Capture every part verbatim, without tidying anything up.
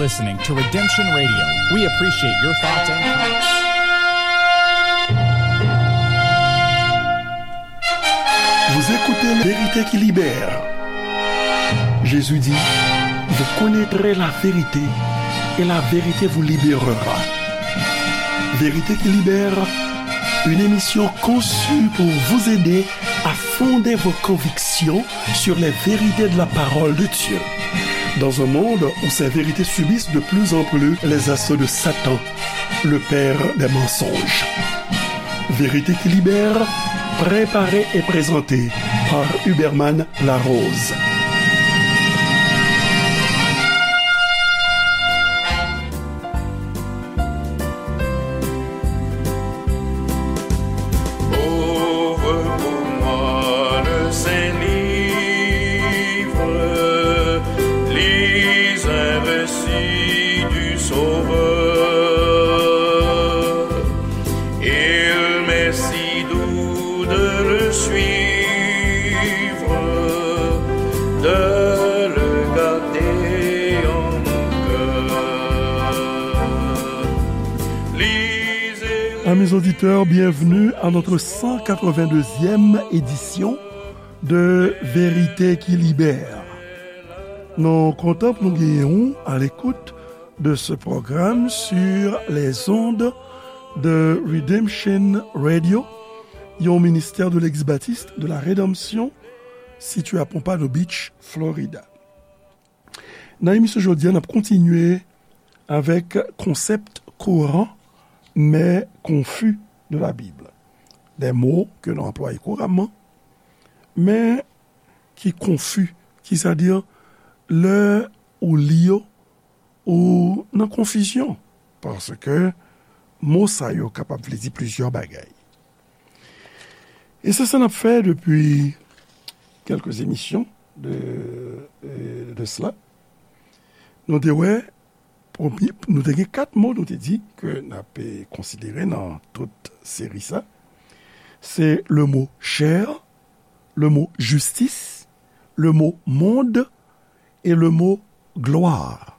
Listening to Redemption Radio. We appreciate your thoughts and comments. Vous écoutez Vérité qui libère. Jésus dit, vous connaîtrez la vérité et la vérité vous libérera. Vérité qui libère, une émission conçue pour vous aider à fonder vos convictions sur les vérités de la parole de Dieu. Dans un monde où ces vérités subissent de plus en plus les assauts de Satan, le père des mensonges. Vérité qui libère, préparée et présentée par Huberman Larose. Ouvre pour moi le Saint Livre, lis un récit du Sauveur. Il m'est si doux de le suivre, de le garder en mon cœur. Lisez. Amis auditeurs, bienvenue à notre cent quatre-vingt-deuxième édition de Vérité qui libère. Nou kontan pou nou genyen w à l'écoute de ce programme sur les ondes de Redemption Radio, yon ministè de l'ex-baptiste de la rédemption situé à Pompano Beach, Florida. Nan emisyon jodi a, n ap kontinye avèk konsèp courant mais confus de la Bible. Des mots que nou anplwaye kouramman, men ki konfi, ki sa di lè ou li yo, ou nan konfizyon, paske mo sa yo kapab vle di plizyè bagay. E se sa n ap fè depi kèlke emisyon de, de, de sela. Nou te wè, premye, nou te gen kat mo nou te di ke n ap, eh, konsidere nan tout seri sa. Se le mo chè, le mo jistis, le mo monde et le mo gloire.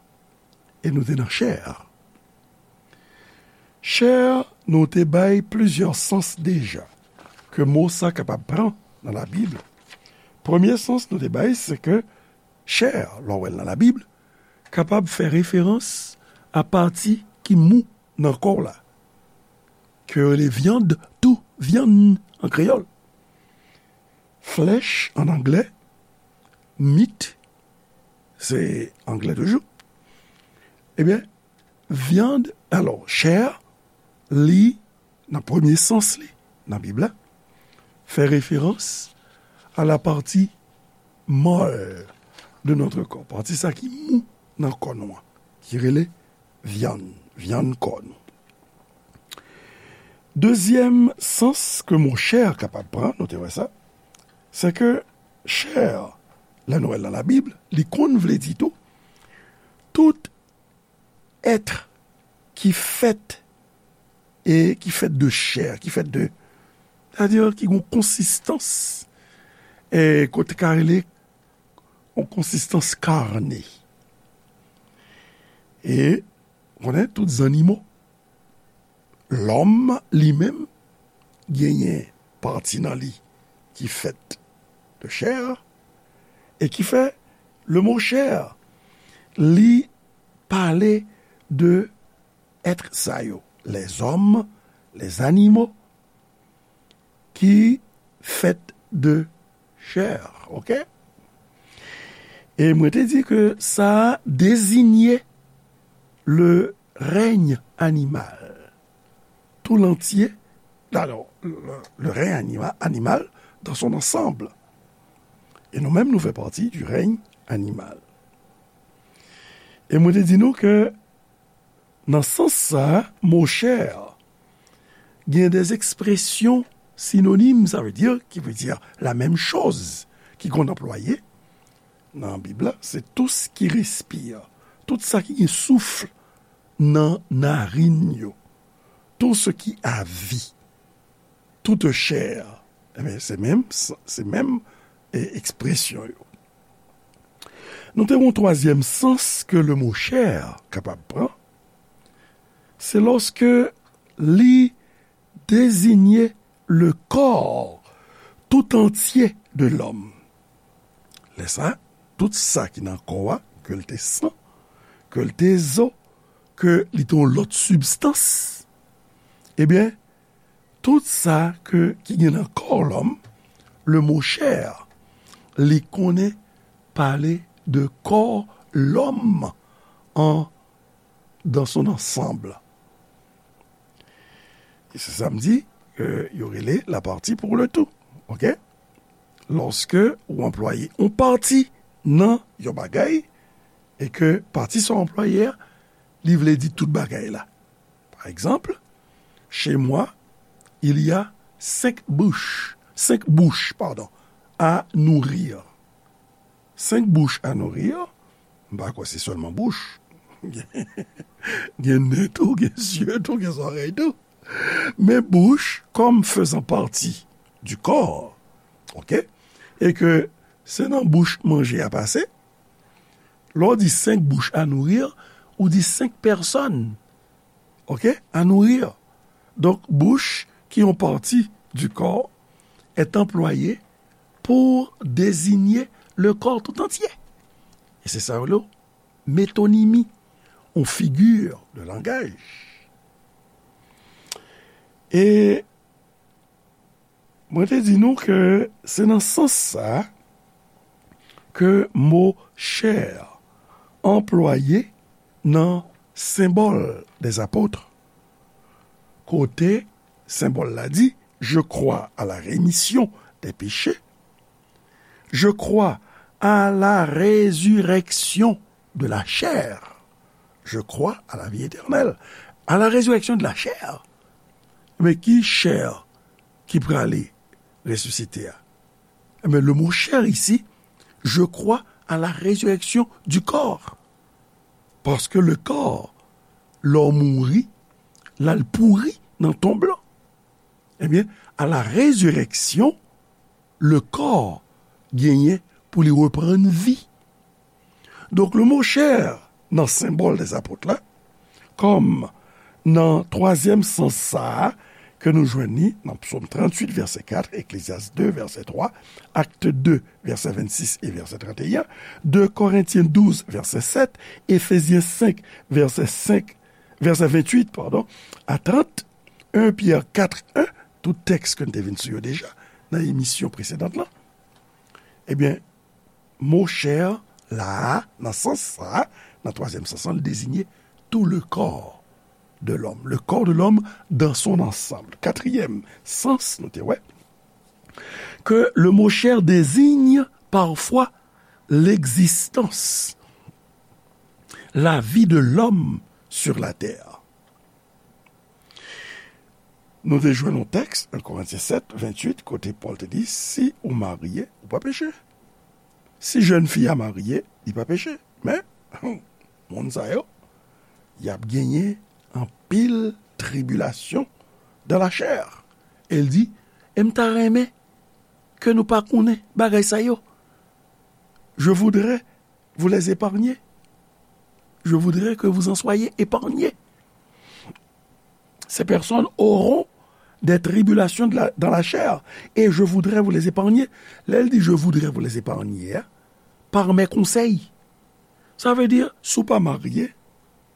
E nou te nan chè. Chè, nou te bay plizyè sans deja ke mo sa kapab pran nan Labib. Premye sans nou te bay, se ke chè, lè w wè l nan Labib, kapab fè referans a pati ki mou nan kò w la, ke yo rele vyann tou, vyann an kreyòl. Flesh an anglè, meat, se anglè toujou. Ebyen, vyann, alò, chè, li, nan premye sans li, nan Bib la, fè referans a la partie molle de notre corps, pati sa ki mou nan kò nou an, ki rele vyann, vyann kò nou. Dezyèm sans ke mo chè kapab pran, nou te wè sa, se ke chè, lè nou wè l nan Labib, li konn vle di tou, tout èt ki fèt e ki fèt de chè, ki fèt de, sètadi ki gen yon konsistans, e kote ka rele yon konsistans karne. E, ou konnen, tout zannimo, lòm li menm genyen pati nan li ki fèt de chè, e ki fè le mo chè, li pale de èt sa yo, les hommes, les animaux, ki fèt de chè, oke? E mwen te di ke sa dezinye le règne animal tout entier, alò, le, le règne anima-, animal dans son ensemble. E nou menm, nou fè pati du règne animal. E mwen te di nou ke nan sans sa, mo chè gen des expressions synonymes, sa vle di, ki vle di la menm choz, ki konn anplwaye nan Bib la, se tout ce qui respire, tout sa ki gen souf nan narin yo, tout ce qui a vie, toute chair. Ebyen, se menm, se menm, e, ekspresyon yo. Nou te gen yon twazyèm sans ke le mo chè kapab pran, se lòske li deziye le corps tout entier de l'homme. Lè sa, tout sa ki nan kò a, ke l te san, ke l te zo, ke li te yon lòt sibstans, ebyen, tout sa ke, ki gen nan kò lòm, le mo chè, li konnen pale de kò lòm an, dans son ensemble. E se sa m di, ke yo rele la partie pour le tout. Oke? Lòske ou anplwaye yon pati nan yon bagay, e ke pati sa w anplwaye a, li vle di tout bagay la. Par exemple, chez moi, il y a cinq bouches, cinq bouches, pardon, à nourrir. Cinq bouches à nourrir, m pa kwè se sèlman bouch. Gen nen tou, gen zye tou, gen zòrèy tou. Men bouch, comme faisant partie du corps, oke? E ke se nan bouch manje a pase, lè w di cinq bouches à nourrir, ou di cinq personnes, oke, à nourrir. Donk, bouch, ki yon pati du corps, est employée pour désigner le corps tout entier. E se sa yo rele métonymie, yon figi de langaj. E mwen te di nou ke se nan sans sa ke mo chè anplwaye nan Symbole des Apôtres, kote senbòl la di, je crois à la rémission des péchés, je crois à la résurrection de la chair, je crois à la vie éternelle, à la résurrection de la chair. Men ki chè ki prale resisite a? Ebyen, le mot chair ici, je crois à la résurrection du corps. Paske le corps, lè w mouri, l al pouri nan tonb lan. Ebyen, à la résurrection, le corps genyen pou li reprann vi. Donk, le mo chè nan Symbole des Apôtres la, kòm nan twazyèm sans sa a ke nou jwenn li nan Psaume trente-huit, verset quatre, Ecclésiaste deux, verset trois, Actes deux, verset vingt-six et verset trente et un, deux Corinthiens douze, verset sept, Éphésiens cinq, verset cinq, verset vingt-huit, pardon, à trente, un Pierre quatre un, tout tèks ke n te vin sou yo deja nan emisyon presedan lan. Ebyen, mo chè la a, nan sans sa a, nan twazyèm sans lan, li deziye tout le corps de l'homme, le corps de l'homme dans son ensemble. Katriyèm sans, nou te wè que le mot chair désigne parfois l'existence, la vie de l'homme sur la terre. Nou te jwenn yon tèks, un Corinthiens sept, vingt-huit, kote Pòl te di, si ou marye, ou pa peche. Si jèn fi a marye, li pa peche. Men, moun sa yo, y ap genyen anpil tribilasyon dans la chair. E l di, e m ta renmen ke nou pa konnen bagay sa yo. Je voudrais vous les épargner. Je voudrais que vous en soyez épargnés. Ces personnes auront des tribulations de la, dans la chair, et je voudrais vous les épargner. Lè l di je voudrais vous les épargner, hein, par mes conseils. Sa vle di, si w pa marye,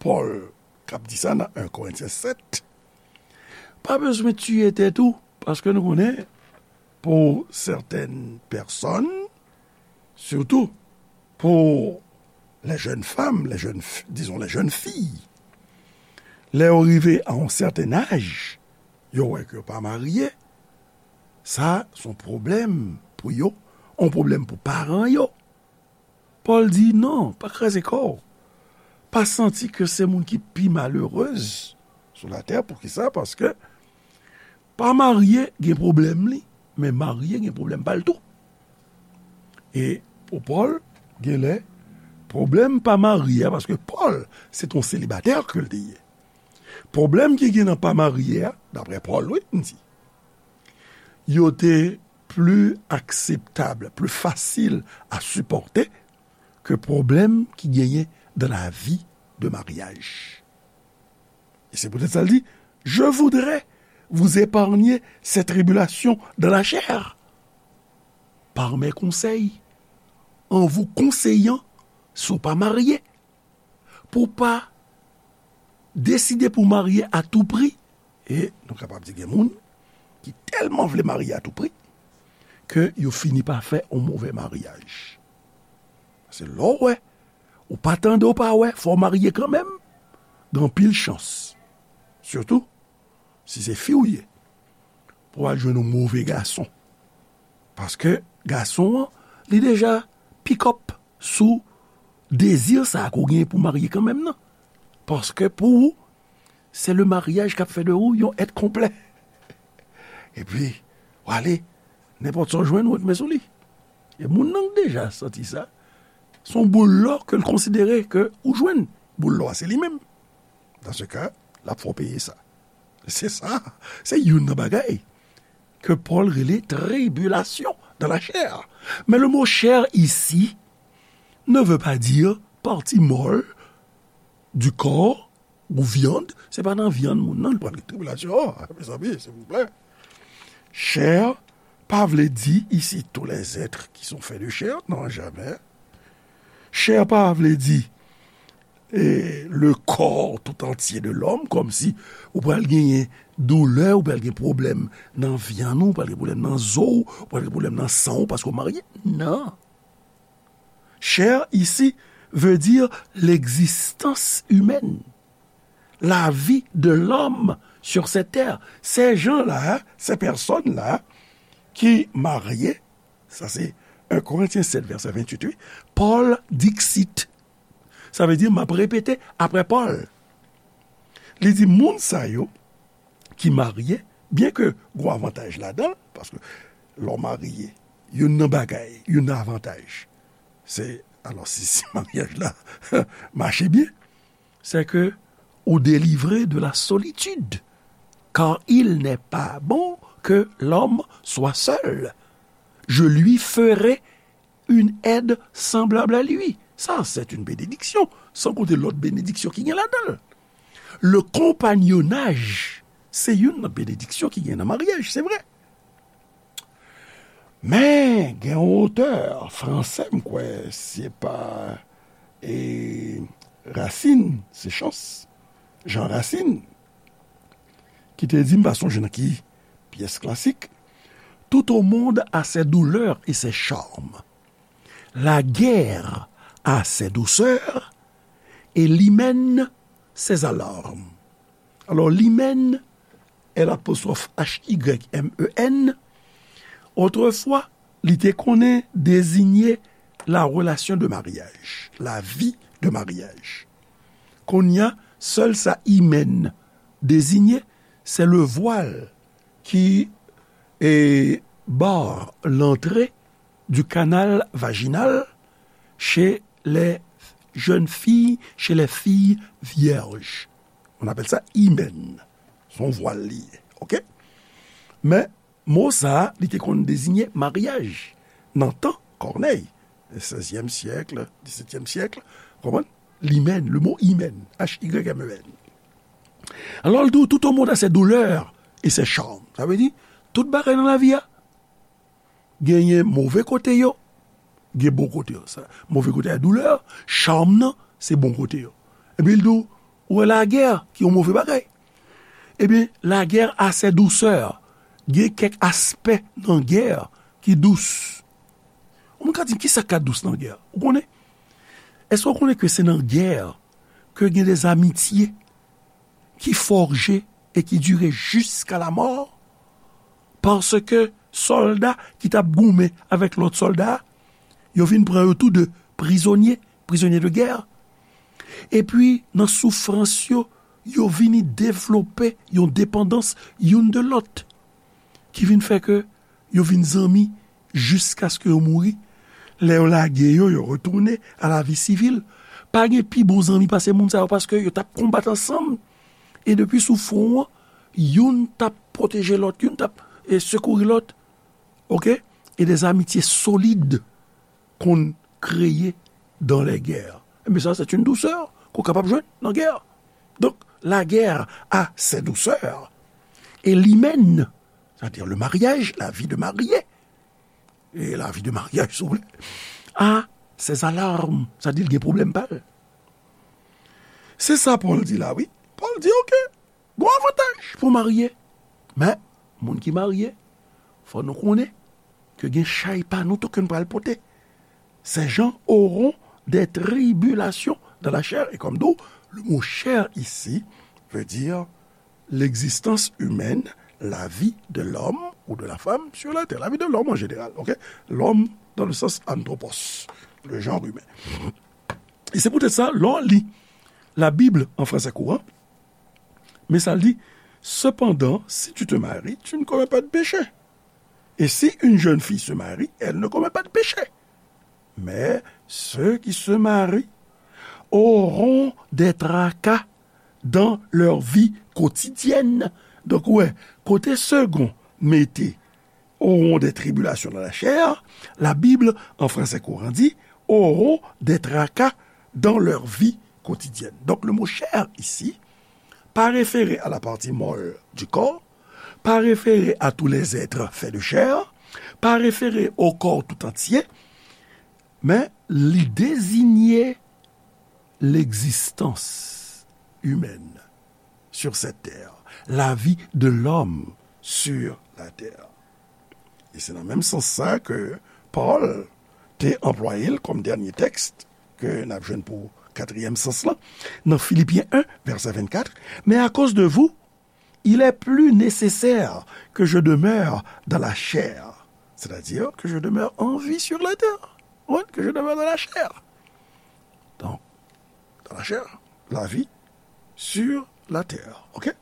Pòl k ap di sa nan un Corinthiens sept, pa bezwen tiye tèt ou, paske nou konnen, pour certaines personnes, surtout pour les jeunes femmes, les jeunes, disons les jeunes filles, lè yo rive a yon sèten aj, yo wè ke yo pa marye, sa se yon pwoblèm pou yo, yon pwoblèm pou paran yo. Pòl di, non, pa kraze kò w. Pa santi ke se moun ki pi malerèz sou latè. Poukisa? Paske pa marye gen pwoblèm li, men marye gen pwoblèm pa l tou. E pou Pòl, genlè, pwoblèm pa marye a, paske Pòl, se t on selibatè ke l te ye. Pwoblèm ki gen nan pa marye a, daprè Pòl, wi, m di, yo te pli akseptab, pli fasil a sipòte ke pwoblèm ki genyen dans la vie de mariage. Et c'est peut-être ça, il dit, je voudrais vous épargner ces tribulations dans la chair par mes conseils, en vous conseillant, si w pa marye, pou w pa deside pou w marye a tou pri. E nou kapab di gen moun ki tèlman vle marye a tou pri ke yo fini pa fè yon move maryaj. Se lè w wè, ou pa tande, ou pa wè, fò w marye kanmenm, gen anpil chans. Sitou, si se fi w ye, pou w al jwenn yon move gason. Paske gason an, li deja pick up sou dezi sa a ke w genyen pou w marye kanmenm nan. Paske pou ou, se le maryaj k ap fè de ou yon èt konplè. Epi, w ale, nenpòt sa w jwenn, ou ret men sou li. E moun nan k deja santi sa, se yon boul lò ke l konsidere ke ou jwenn. Boul lò a, se li menm. Dans ce cas, l ap fè w peye sa. Se sa, se youn nan bagay ke Pòl rele tribulation dans la chair. Mais le mot chair ici ne veut pas dire partie molle du corps ou viande. Se pa nan vyann moun nan, li pral gen tribilasyon. Oh, mezanmi, silvouplè. Chair pa vle di ici tous les êtres qui sont faits de chair. Non, jamais. Chair pa vle di e, le corps tout entier de l'homme, kòmsi ou pral genyen doulè, ou pral gen pwoblèm nan vyann ou, ou pral gen pwoblèm nan zo w, ou pral gen pwoblèm nan san w, paske w marye. Non. Chair ici veut dire l'existence humaine, la vie de l'homme sur cette terre. Ces gens-là, ces personnes-là qui marient, sa se un Corinthiens sept, verset vingt-huit, wi, Paul dixit. Sa vle di, m ap repete apre Pòl. Li di, moun sa yo ki marye, byen ke gwo avantaj ladan l, paske lè w marye, youn nan bagay, youn nan avantaj, se, alò, si, si maryaj la mache byen, c'est que ou délivré de la solitude, car il n'est pas bon que l'homme soit seul. Je lui ferai une aide semblable à lui. Ça, c'est une bénédiction. San konte lòt benediksyon ki gen ladan l. Le compagnonnage, se youn nan benediksyon ki gen nan maryaj, se vre. Men, gen yon otè fransè, m kwè, se pa, e, Racine, se chans, Jean Racine, ki te di, m pa sonje nan ki pyès klasik, tout au monde a ses douleurs et ses charmes. La guerre a ses douceurs et l'hymen ses alarmes. Alò, l'hymen, L apostwòf H Y M E N, otrefwa, li te konnen dezinye la relation de mariage, la vie de mariage. Kounye a, sèl sa hymen dezinye, se le voile qui, e, barre l'entrée du canal vaginal chez les jeunes filles, chez les filles vierges. On appelle ça hymen. Se yon vwal li ye. Oke? Men, mo sa a, li te konn deziye maryaj. Nan tan Kònèy, sèzyèm syèk, disetyèm syèk, konprann? L'hymen, le mot hymen, H Y M E N. Alò, l di w, tout au monde a ses douleurs et ses charmes. Sa vle di, tout bagay nan lavi a, genyen move kote yo, gen bon kote yo. Sa, move kote a doulè, cham nan, se bon kote yo. Epi l di w, ou wè lagè, ki yon move bagay. Ebyen, lagè a ses douceurs, gen kèk aspè nan gè ki dous. Ou moun ka di m, kisa k ka dous nan gè? Ou konnen? Èske w konnen ke se nan gè ke gen de zamitye ki fòje e ki dire jiska lamò, paske sòlda ki t ap goumen avèk lòt sòlda, yo vin pran yo tou de prizonye, prizonye de gè. Epi, nan soufrans yo, yo vini devlope yon depandans youn de lòt, ki vin fè ke yo vin zanmi jiskaske yo mouri. Lè yo lage yo, yo retounen a la vi sivil. Pa gen pi bon zanmi pase moun sa yo, paske yo t ap konbat ansanm. E depi sou fwon an, youn t ap pwoteje lòt, youn t ap, e, sekouri lòt. Oke? E de zamitye solid konn kreye dans les guerres. Ebyen sa, c'est une douceur ke w kapab jwenn nan gè. Donc, la guerre a ses douceurs. Et l'hymen, c'est-à-dire le mariage, la vie de marié, et la vie de mariage, si vous voulez, a ses alarmes, sa di l gen pwoblèm pa l. Se sa Pòl di la, wi. Pòl di, oke, gon avantaj pou marye. Men, moun ki marye, fò nou konnen ke gen chay pa nou tou ke n pral pote. Ces gens auront des tribulations dans la chair. Et comme d'où le mot chair ici veut dire l'existence humaine, la vie de l'homme ou de la femme sur la terre, la vie de l'homme en général, ok? L'homme dans le sens anthropos, le genre humain. Et c'est peut-être ça, lè w li la Bible en français courant, mais ça le dit, cependant, si tu te maries, tu ne commets pas de péché. Et si une jeune fille se marie, elle ne commet pas de péché. Mais ceux qui se marient auront des tracas dans leur vie quotidienne. Donk, wè, kote second mete auront des tribulations dans la chair, la Bible, en français courant, dit auront des tracas dans leur vie quotidienne. Donc, le mot chair ici, pa refere a la pati mòl du corps, pa refere a tous les êtres faits de chair, pa refere au corps tout entier, men li deziye l'existence humaine sur cette terre, la vie de l'homme sur la terre. E se nan menm sans sa ke Pòl te anplwaye l kòm dènye tèks ke n ap jwenn pou katriyèm sans lan, nan Filipyen en, vèsè vennkat, mais à cause de vous, il est plus nécessaire que je demeure dans la chair, c'est-à-dire que je demeure en vie sur la terre. Ou konprann? Que je demeure dans la chair. Donc, dans la chair, la vie sur la terre. Ok?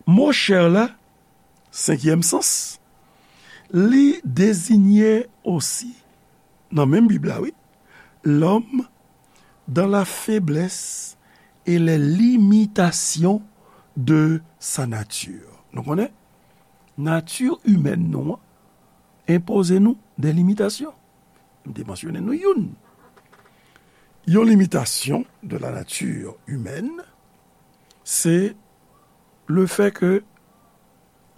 Mo chair la, senkyèm sans, li deziye osi, nan menm Bib la, wi, l'homme dans la faiblesse et les limitations de sa nature. Nou konnen, nati imèn nou an enpoze nou de limitasyon. M te mansyone nou youn. Yon limitasyon de la nature humaine, se le fait que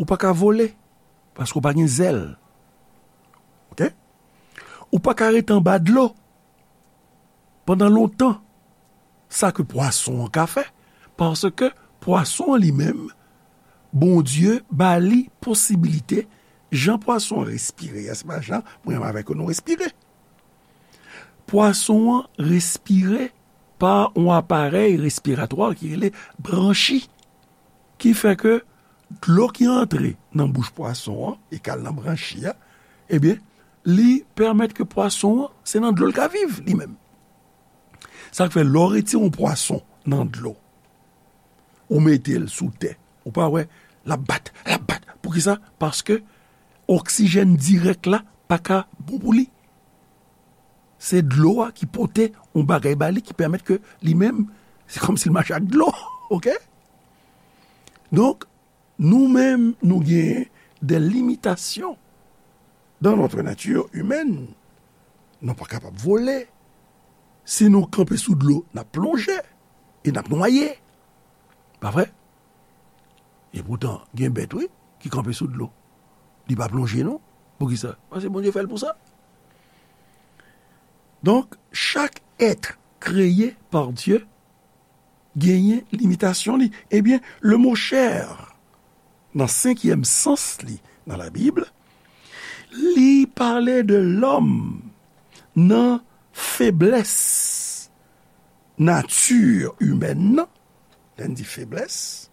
ou pa ka vole, paske ou pa gen zèl. Ok? Ou pa ka rete anba dlo pandan lontan, sa ke pwason an ka fè, paske pwason an li menm, Bondye ba li posibilite, jan pwason an respire a, se pa jan mwen avèk ou nou respire. Pwason an respire pa yon aparèy respiratwa ki rele branchi, ki fè ke dlo ki antre nan bouch pwason an e k al nan branchi a, ebyen, li pèmèt ke pwason an, se nan dlo l ka viv li menm. Sa k fè, lè w retire yon pwason nan dlo, ou mete l sou tè, ou pa wè, l ap bat, l ap bat. Poukisa? Paske oksijèn dirèk la pa ka bon pou li. Se dlo a ki pote yon bagay ba li ki pèmèt ke li menm, se kòmsi l mache ak dlo. Ok? Donk, nou menm, nou gen de limitasyon dans notre nature humaine. Nou pa kapab vole. Si nou kanpe sou dlo, n ap plonje e n ap nwaye. Pa vre? E poutan, gen bèt, wi, ki kanpe sou dlo. Li pa plonje, non. Poukisa? Paske Bondye fè l pou sa. Donk, chak èt kreye pa Dye genyen limitasyon li. Ebyen, le mo chair, nan senkyèm sans li nan Labib, li pale de lòm nan feblès nati imèn nan. Lè n di feblès,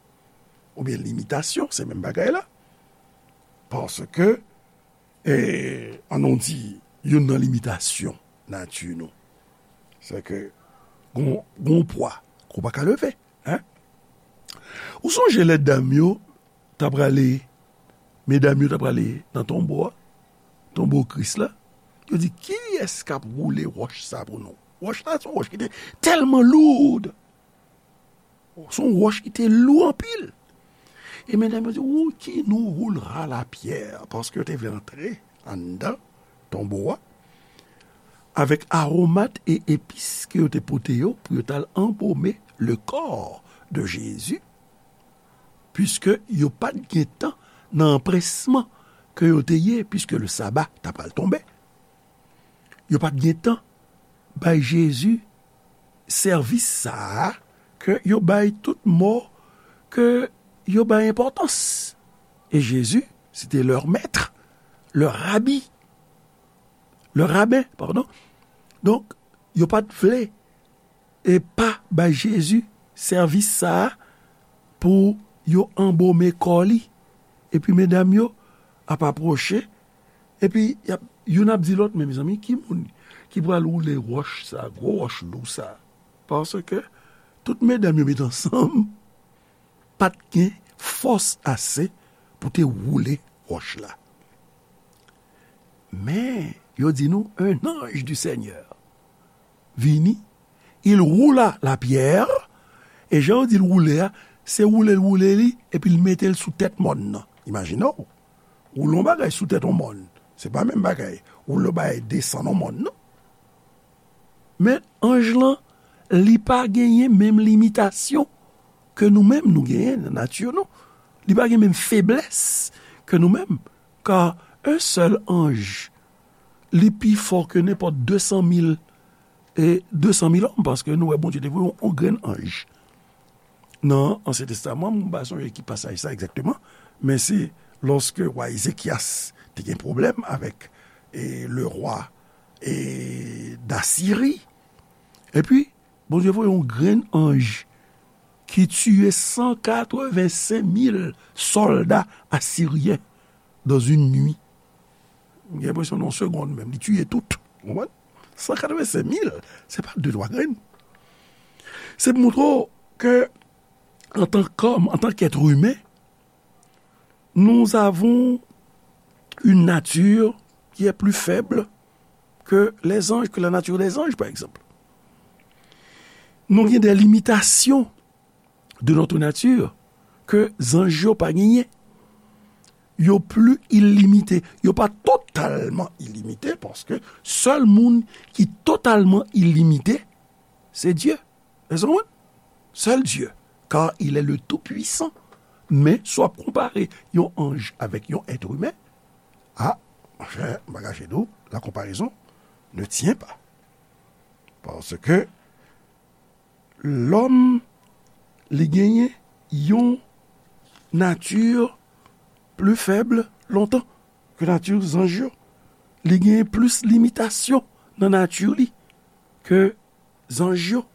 oubyen limitasyon, se menm bagay la. Paske, e, ann nou di, youn nan limitasyon nati nou, se ke gon, gon pwa ke w pa ka leve, en. Ou sonje lè dam yo t ap prale, medam yo t ap prale nan tonbo a, tonbo Kris la, yo di, "Kiyès k ap woule wòch sa pou nou?" Wòch la, se yon wòch ki te tèlman loud. Se yon wòch ki te lou anpil. E medam yo di, "Ou, qui nous roulera la pierre?" Paske yo te vle antre anndan tonbo a. avèk aromat e epis ke yo te pote yo pou yo t al anbome le corps de Jésus, piske yo pa t gen tan nan anpresman ke yo te ye, piske le saba ta pral tonbe. Yo pa t gen tan bay Jezi sèvis sa a ke yo bay tout mò ke yo bay enpòtans. E Jezi, se te leur maître, leur rabbi, leur rabbin, pardon. Donk, yo pa t vle e pa bay Jezi sèvis sa a pou yo anbome kò li. Epi medam yo ap apwoche, epi y ap, youn ap di lòt, men mezanmi, ki moun ki pral woule wòch sa, gwo wòch lou sa? Paske tout medam yo met ansanm, pa t gen fòs ase pou te woule wòch la. Men, yo di nou, un ange du Seigneur vini, il roula la pierre, e jan yo di l woule a, se woule l woule li, epi l mete l sou tèt mòn nan. Imajine w, woule yon bagay sou tèt yon mòn, se pa menm bagay, woule yon bagay desann yon mòn, non. Men anj lan, li pa genyen menm limitasyon ke nou menm nou genyen nan nati nou. Li pa gen menm feblès ke nou menm. Kar un sèl anj, li pi fò ke nenpòt de san mil, e de san mil òm, paske nou wè Bondye te voye yon, yon grenn anj. Nan Ansyen Testaman, m pa sonje ki pasaj sa egzakteman, men se lòske wa Ezekyas te gen pwoblèm avèk, e, le rwa, e, Dasiri. Epi, Bondye voye yon grenn anj ki tiye san katrevensenk mil sòlda asiryen dans une nuit. M gen enpresyon nan yon segonn menm, li tiye tout. Ou konprann? San katrevensenk mil, se pa de twa grenn. Se pou montre w ke, antan kòm, antan kèt imen, nous avons une nature qui est plus faible que les anges, que la nature des anges, par exemple. Nou gen de limitasyon de notre nature ke zanj yo pa genyen. Yo pli ilimite. Yo pa totalman ilimite, paske sèl moun ki totalman ilimite, se Dye. Èske w konprann? Sèl Dye, car il est le Tout-Puissant. Men, si w ap konpare yon anj avèk yon èt imen, a, monchè, m pa kache di w, la comparaison ne tient pas. Paske lòm, li genyen yon nati pli fèb lontan ke nati zanj yo. Li genyen plis limitasyon nan nati li ke zanj yo.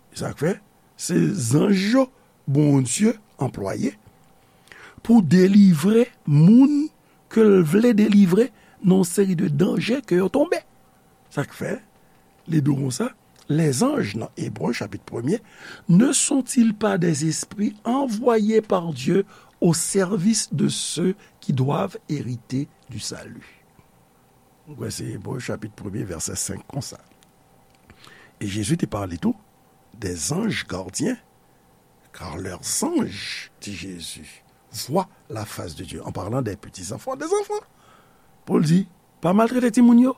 E sa k fè, se zanj yo Bondye anplwaye pou delivre moun ke l vle delivre nan yon seri de danje ke yo tonbe. Sa k fè, li di w konsa, les anges, nan Ebre, chapit premye, ne sont-ils pas des esprits envoyés par Dieu au service de ceux qui doivent hériter du salut? Mwen kwè se Ebre, chapit premye, vèsè senk, konsa. E Jezi te pale tou des anges gardiens, car leurs anges, di Jezi, voient la face de Dieu, en parlant des petits enfants, des enfants. Pou l di, pa maltrete timoun yo,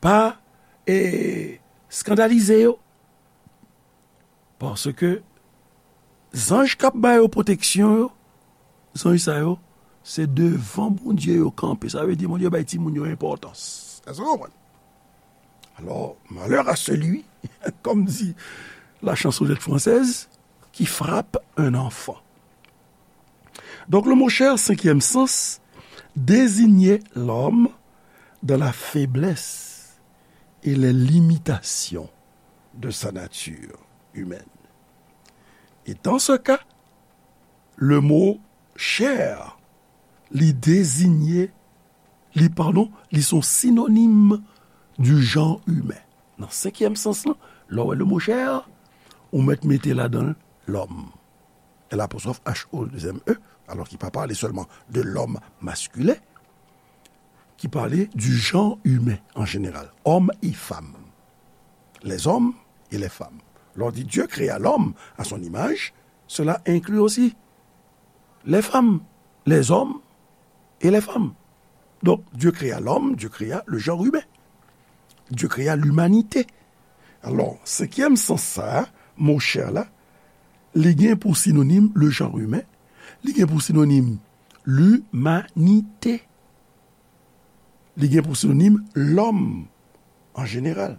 pa, e, eskandalize yo. Paske zanj k ap ba yo pwoteksyon yo, zanj sa yo, se devan Bondye yo kanpe. Sa vle di Bondye bay timoun yo enpòtans. Èske w konprann? Alors, malheur à celui, comme dit la chansonnette française, qui frappe un enfant. Donc, le mot chair, cinquième sens, désignait l'homme dans la faiblesse et les limitations de sa nature humaine. Et dans ce cas, le mot chair, li désigne, li, pardon, li son synonyme du genre humain. Nan senkyèm sans lan, lè w wè le mot chair, ou mèt mete ladan l l'homme. L apostwòf H O, dezyèm E, alò ki pa pale sèlman de l'homme masculin, ki pale du genre humain en général, hommes et femmes. Les hommes et les femmes. Lè w di Dieu créa l'homme à son image, cela inclut aussi les femmes, les hommes et les femmes. Donc, Dieu créa l'homme, Dieu créa le genre humain. Dieu créa l'humanité. Alò, senkyèm sans sa a, mo chè la, li gen pou sinonim le genre humain, li gen pou sinonim l'humanité, li gen pou sinonim lòm an jeneral.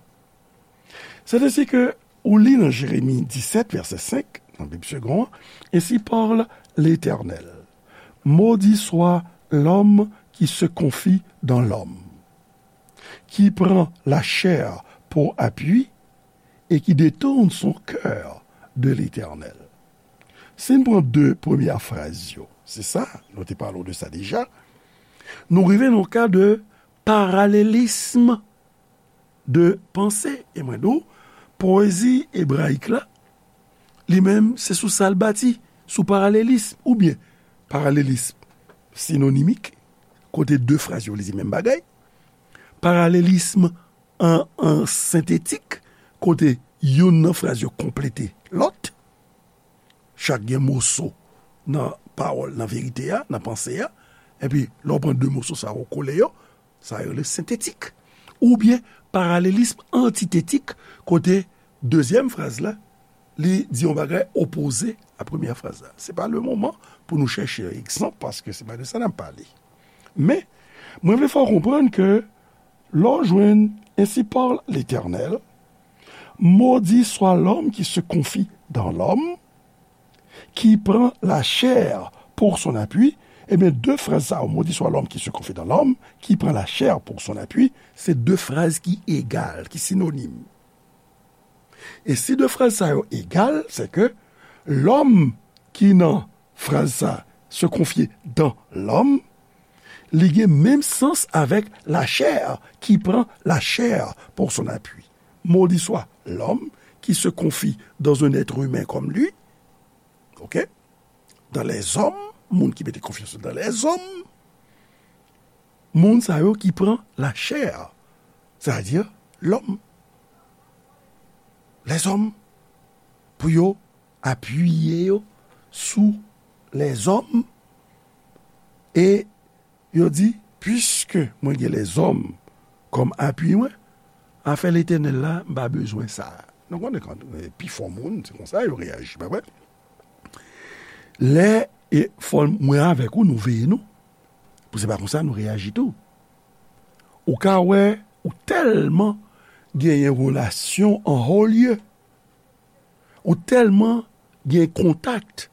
Sètadi ke ou li nan Jeremi disèt, vèsè senk, nan Bib Segond an, Ainsi parle l'Éternel. Maudit soit l'homme qui se confie dans l'homme, qui prend la chair pour appui et qui détourne son cœur de l'Éternel. Si n pran de premyè fraz yo, se sa, nou te pale de sa deja, nou rive nan ka de paralelism de panse. E mwen di w, powezi ebrayik la, li menm, se sou sa l bati, sou paralelism, oubyen paralelism sinonimik, kote de fraz yo vle di menm bagay, paralelism an, an sentetik, kote youn nan fraz yo konplete lòt, chak gen moso nan pawòl, nan verite a, nan panse a, epi lè w pran de moso sa yo, w kole yo, sa yo rele sentetik. Oubyen paralelism antitetik, kote dezyèm fraz la, li di yon bagay opoze a premyè fraz la. Se pa le moman pou nou chèche egzanp, paske se pa de sa n ap pale. Men, mwen vle fè w konprann ke lè w jwenn Ainsi parle l'Éternel, maudit soit l'homme qui se confie dans l'homme, qui prend la chair pour son appui, ebyen, de fraz sa yo, maudit soit l'homme qui se confie dans l'homme, qui prend la chair pour son appui, se de fraz ki egal, ki sinonim. E si de fraz sa yo egal, se ke lòm ki nan fraz sa, se konfye dans l'homme, li gen menm sans avèk la chair, qui prend la chair pour son appui. Maudit soit l'homme qui se confie dans un être humain comme lui. OK? Dans les hommes, moun ki mete konfyans yo dans les hommes, moun sa yo ki pran la chair, c'est-à-dire l'homme. Les hommes, pou yo apiye yo sou les hommes, e yo di, puiske mwen gen les hommes kòm apui mwen, afè Letènèl la, m pa bezwen sa. Nou konnen kan, eh, pifò moun, se konsa yo reyaji, pa vre? Lè, e fò mwen avèk ou, nou veye nou, pou se pa konsa nou reyaji tou. Ou ka wè, ou tèlman genyen relasyon an ho lye, ou tèlman gen kontak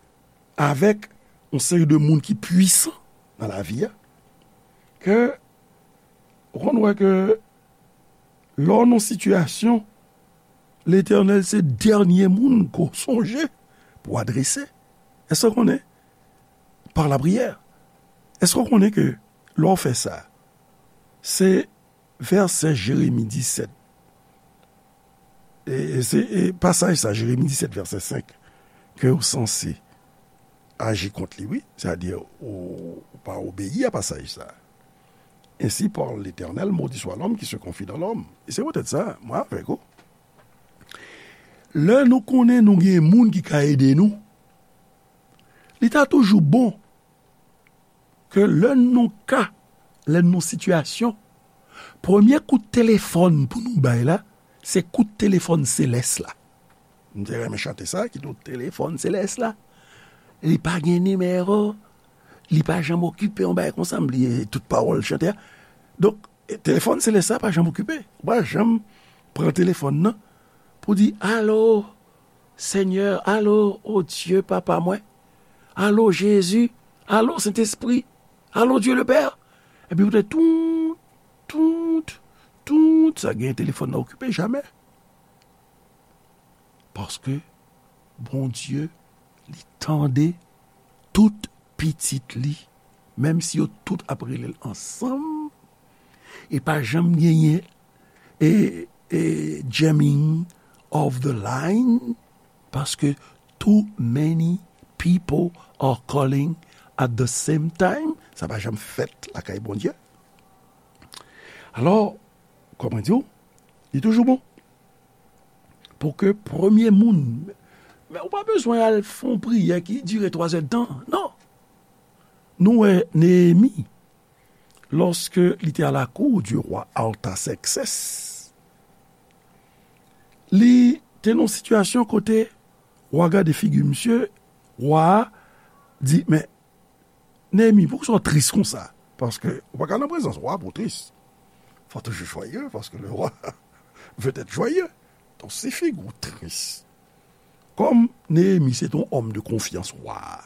avèk yon seri de moun ki pwisan nan lavi a, ke ou konn wè ke lè w nan sitiyasyon, Letènèl se dènye moun ke w sonje pou w adrese. Èske w konnen? Par la priyè. Èske w konnen ke lè w fè sa, se vèsè Jeremi disèt, e, e se, e pasaj sa, Jeremi disèt, vèsè senk, ke w sanse aji kont li, wi. Sètadi, ou, ou pa obeyi a pasaj sa. Ainsi parle l'Éternel, maudit soit l'homme qui se confie dans l'homme. E se poutèt sa, mwen avèk ou, lè nou konnen nou gen moun ki ka ede nou, li ta toujou bon ke lè n nan ka, lè n nan sitiyasyon, premye kout telefòn pou nou bay la, se kout telefòn selès la. M te renmen chante sa, ki di w telefòn selès la. Li pa gen nimewo, li pa janm okipe, yon bagay konsa, m bliye tout pawòl chante a. Donk, e, telefòn selès la pa janm okipe. Ou pa janm pran telefòn nan pou di, alo, Senyè, alo, o Dye, Papa mwen, alo, Jezi, alo, Sentespri, alo, Dye le Pè. Epi poutèt tout, tout, tout, sa gen telefòn nan okipe, jamè. Paske Bondye, li tande tout pitit li, menm si yo tout ap rele l ansanm, e pa janm genyen e, e jamming of the line, paske too many people are calling at the same time. Sa pa janm fèt lakay Bondye. Alò, kòman di w, li toujou bon pou ke premye moun, men ou pa bezwen al fè yon priyè ki dire twazèdtan, non. Nou wè Neyemi, lòske li te a la cour du roi Artaxerxès, Li te nan yon sitiyasyon kote wa gade figi misye, wa a di, men, Neyemi, poukisa w tris konsa? Paske ou pa ka nan prezans wa pou w tris. Faut toujours joyeux, parce que le roi veut être joyeux. Donk, si figi w tris, kòm Neyemi se te yon òm de konfyans wa a,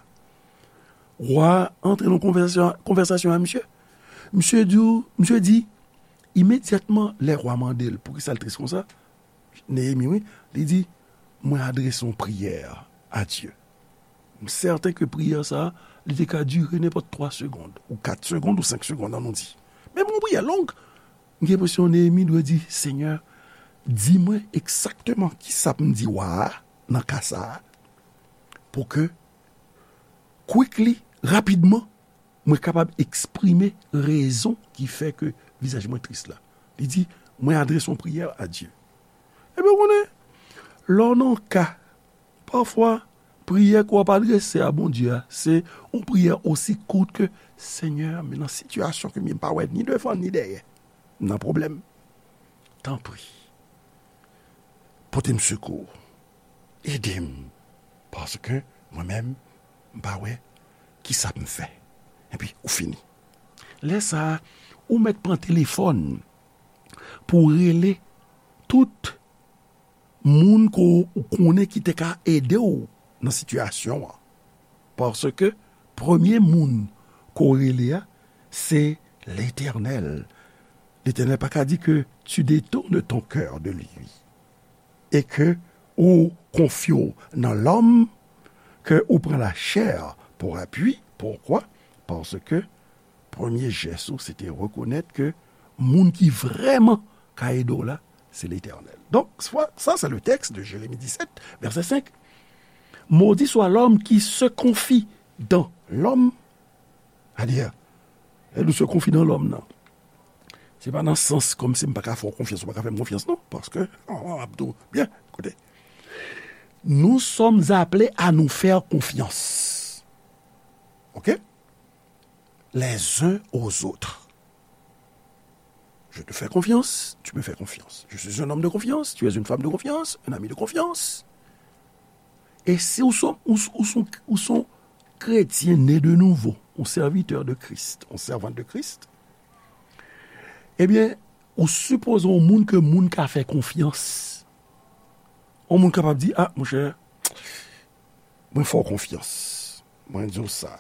wa a antre nan konvèsasyon, konvèsasyon a misye. Misye di, misye di, imedyatman lè wa mande l poukisa l tris konsa, Neyemi, wi, li di, mwen adrese yon priyè a Dye. M sèten ke priyè sa a, li te ka dire nenpòt twa segonn, ou kat segonn, ou senk segonn, ann nou di. Men yon priyè long. M gen enpresyon Neyemi dwe di, Senyè, di mwen egzakteman kisa pou m di wa a nan ka sa a, pou ke quickly, rapidman, mwen kapab eksprime rezon ki fè ke vizaj mwen tris la. Li di, mwen adrese yon priyè a Dye. Ebyen, w konnen, lè w nan yon ka, pafwa, priyè ke w ap adrese a Bondye a, se yon priyè osi kout ke, Senyè, men nan sitiyasyon ke m ye, m pa wè ni devan ni dèyè. M nan pwoblèm. Tanpri, pote m sekou. Ede m. Paske mwen menm, m pa wè kisa pou m fè. Epi, ou fini. Lè sa a, ou mèt pran telefòn pou w rele tout moun ke w konnen ki te ka ede w nan sitiyasyon an. Paske premye moun ke w rele a, se Letènèl. Letènèl pa ka di ke tu détournes ton cœur de lui. E ke ou konfye w nan lòm, ke ou pran lachè pou apui. Poukwa? Paske premye jès ou, se te rekonèt ke moun ki vrèman ka ede w la, se Letènèl. Donk, sa, sa, se le texte de Jérémie dix-sept, verset cinq. Maudit soit l'homme qui se confie dans l'homme. Sètadi, lè nou se konfye nan lòm nan, se pa nan sans kòmsi m pa ka fè w konfyans, ou pa ka fè m konfyans, non. Paske, an, an, ap di w, byen, koute. Nous sommes appelés à nous faire confiance. OK? Les uns aux autres. Je te fais confiance, tu me fais confiance. Je suis un homme de confiance, tu es une femme de confiance, un ami de confiance. E si ou son, ou, ou son, ou son kretyen ne de nouvo, yon sèvitè de Kris, yon sèvant de Kris, ebyen, ou sipoze yon moun ke moun ka fè konfyans. Yon moun kapab di, a, monchè, mwen fè w konfyans. Mwen di w sa.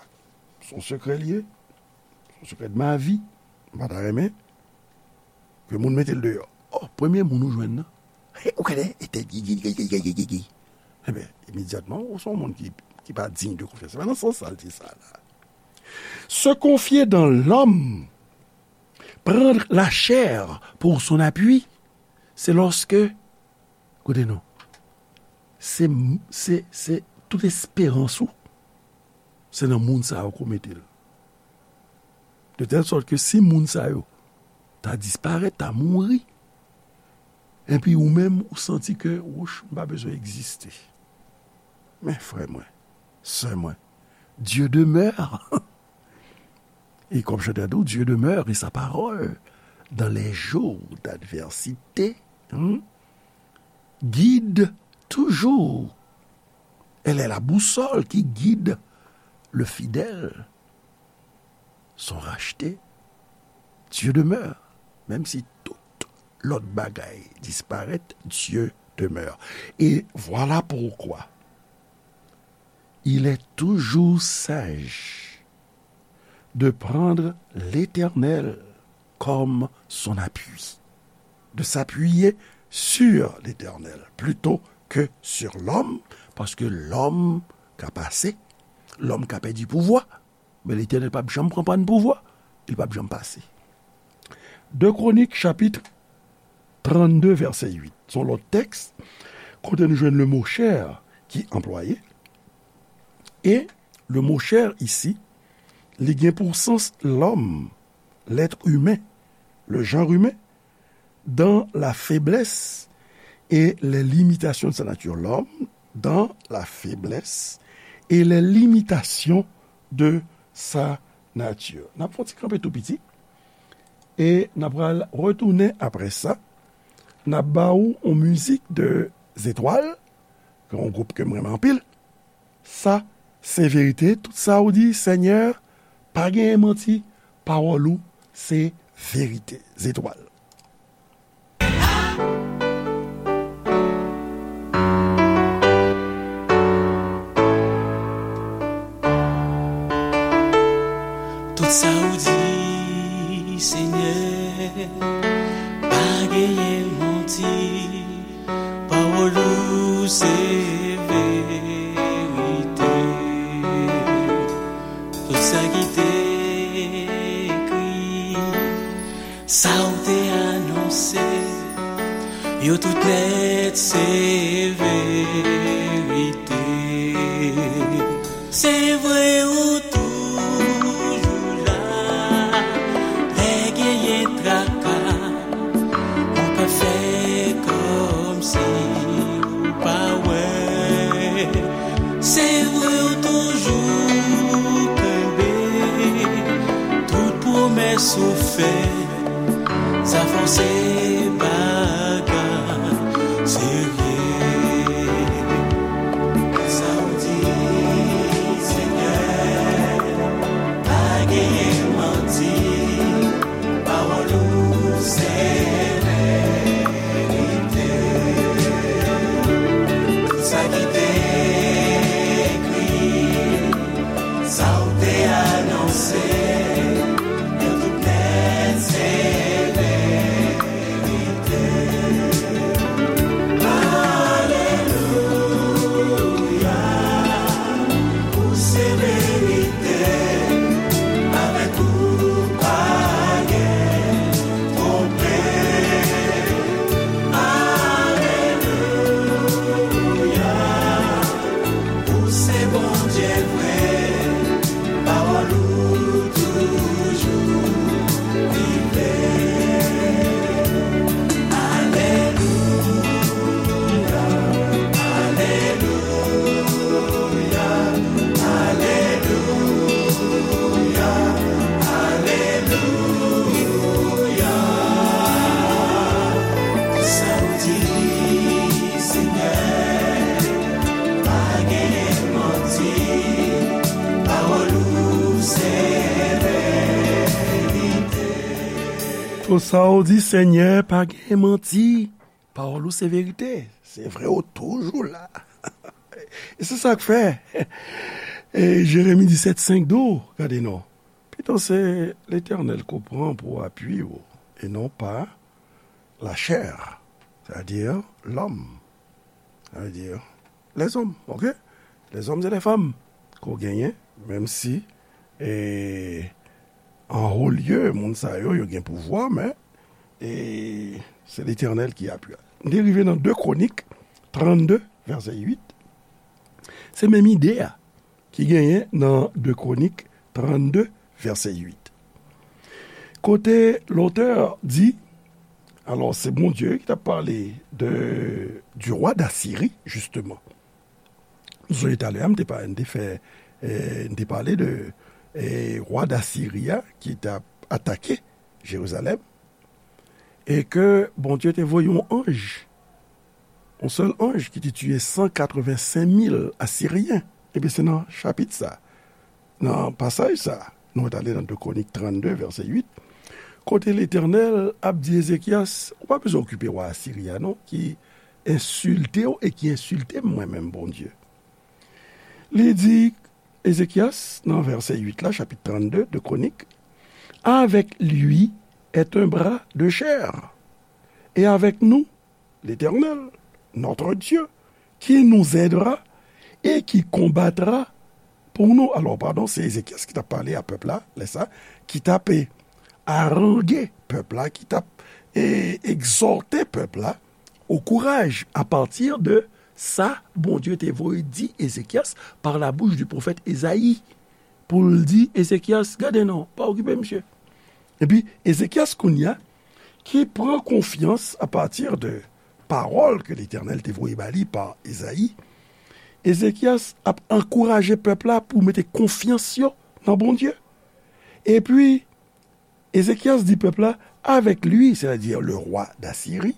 Se yon sekrè l ye. Se yon sekrè de ma vie. M pa ta renmen ke moun mete l deyò. O, premye moun ou jwenn nan. He, ou konnen, e tèt gigi, gigi, gigi, gigi. Ebyen, imedyatman, ou se yon moun ki, ki pa digne de confiance. Se pa nan sans sa l di sa la. Se confier dans l'homme, prendre la chair pour son appui, c'est lorsque, koute non, se, se, se tout esperans ou, se nan moun sa yo ke w mete l. De tèl sòt ke si moun sa yo ta disparèt, ta mouri, epi ou menm, ou santi ke, wouch, m pa bezwen egziste. Men frè mwen, sè mwen, Dieu demeure. E kòm chantè a di w, Dieu demeure et sa parole dans les jours d'adversité, hmm, guide toujours. Elle est la boussole qui guide le fidèle. Sont rachetés. Dieu demeure. Menm si tout lòt bagay disparèt, Dieu demeure. Et voilà pourquoi il est toujours sage de prendre l'Éternel comme son appui, de s'appuyer sur l'Éternel plutôt que sur l'homme, paske lòm ka pase, lòm ka pèdi pouvwa, men Letènèl p ap janm pran pàn pouvwa, li p ap janm pase. De Kwonik, chapit trannde, vèsè uit. Se yon lòt tèks kote nou jwenn le mo chair ki anplwaye. E le mo chair isi, li gen pou sans lòm, l'être humain, le genre humain, dans la faiblesse et les limitations de sa nature. L'homme dans la faiblesse et les limitations de sa nature. N ap fè yon ti kanpe tou piti. E n ap pral retounen apre sa N ap ba ou yon mizik de Zetwal, ki yon gwoup ke m renmen anpil. Sa se verite, tout sa ou di, Senyè, pa genyen manti, pawòl ou se verite. Zetwal. Tout sa ou di, Senyè, pa genyen manti, pawòl ou se verite. Tout sa ki te ekri, sa ou te anonse, yo tout nèt se verite. Se vre ou toujou la, lè genyen traka, ou pa fè kòmsi ou pa wè. Se vre ou toujou kenbe tout pwomès ou fè. Sa fò se bagay serye. Sa ou di, Senyè, pa genyen manti. Pawòl ou se verite. Tout sa ki te ekri, sa ou te anonse, yo tout nèt se verite. Alelouya, ou se verite, avèk ou pa gen twonpe. Alelouya, ou se Bondye vre, pawòl ou toujou vivan. Alelouya, alelouya, alelouya, alelouya. Sa ou di, Senyè, pa genyen manti, pawòl ou se verite. Tout sa ou di, Senyè, pa genyen manti, pawòl ou se verite. Se vre, ou toujou la. E se sa k fè, e Jeremi disèt senk di w, gade non. Pito se Letènèl ke w pran pou apui w, e non pa lachè, sètadi lòm, sètadi lèzòm, oke? Lèzòm e lèfanm ke w genyen, menm si, e, an wo lye, moun sa yo, yo gen pouvwa, men, e, se Letènèl ki apui. M te rive nan de Kwonik trannde, vèsè uit. Se menm ide a ki genyen nan de Kwonik trannde, vèsè uit. Kote lotè di, alò, se Bondye ki t ap pale de, du roi d'Assyrie, jisteman. Nou sonje talè a, m te pa-, m te fè, eh, m te pale de, eh, wa Dasiri a ki t ap atake Jerizalèm, e ke Bondye te voye yon anj, yon sèl anj ki te tiye san katrevensenk mil Asiryen. Ebyen, se nan chapit sa, nan pasaj sa, nou rale nan de Kwonik trannde, vèsè uit, kote Letènèl ap di Ezekyas, ou pa bezwen okipe wa Asiri a non, ki ensilte w e ki ensilte m mwen menm, Bondye. Li di Ezekyas, nan vèsè uit la, chapit trannde de Kwonik, avec lui est un bras de chair, et avec nous, l'Éternel, notre Dieu, qui nous aidera et qui combattra pour nous. Alò, padon, se Ezekyas ki t ap pale a pèp la, lè sa, ki t ap, e, aranje pèp la, ki t ap, e, egzòte pèp la, au courage à partir de sa Bondye te voye di Ezekyas par la bouche du prophète Esaïe, pou l di Ezekyas, gade non, pa okipe misye. Epi, Ezekyas kounye a, ki pran konfyans à partir de pawòl ke Letènèl te voye ba li pa Ezayi, Ezekyas ap ankouraje pèp la pou mete konfyans yo nan Bondye. Epi, Ezekyas di pèp la, avec lui, c'est-à-dire le roi d'Assyrie,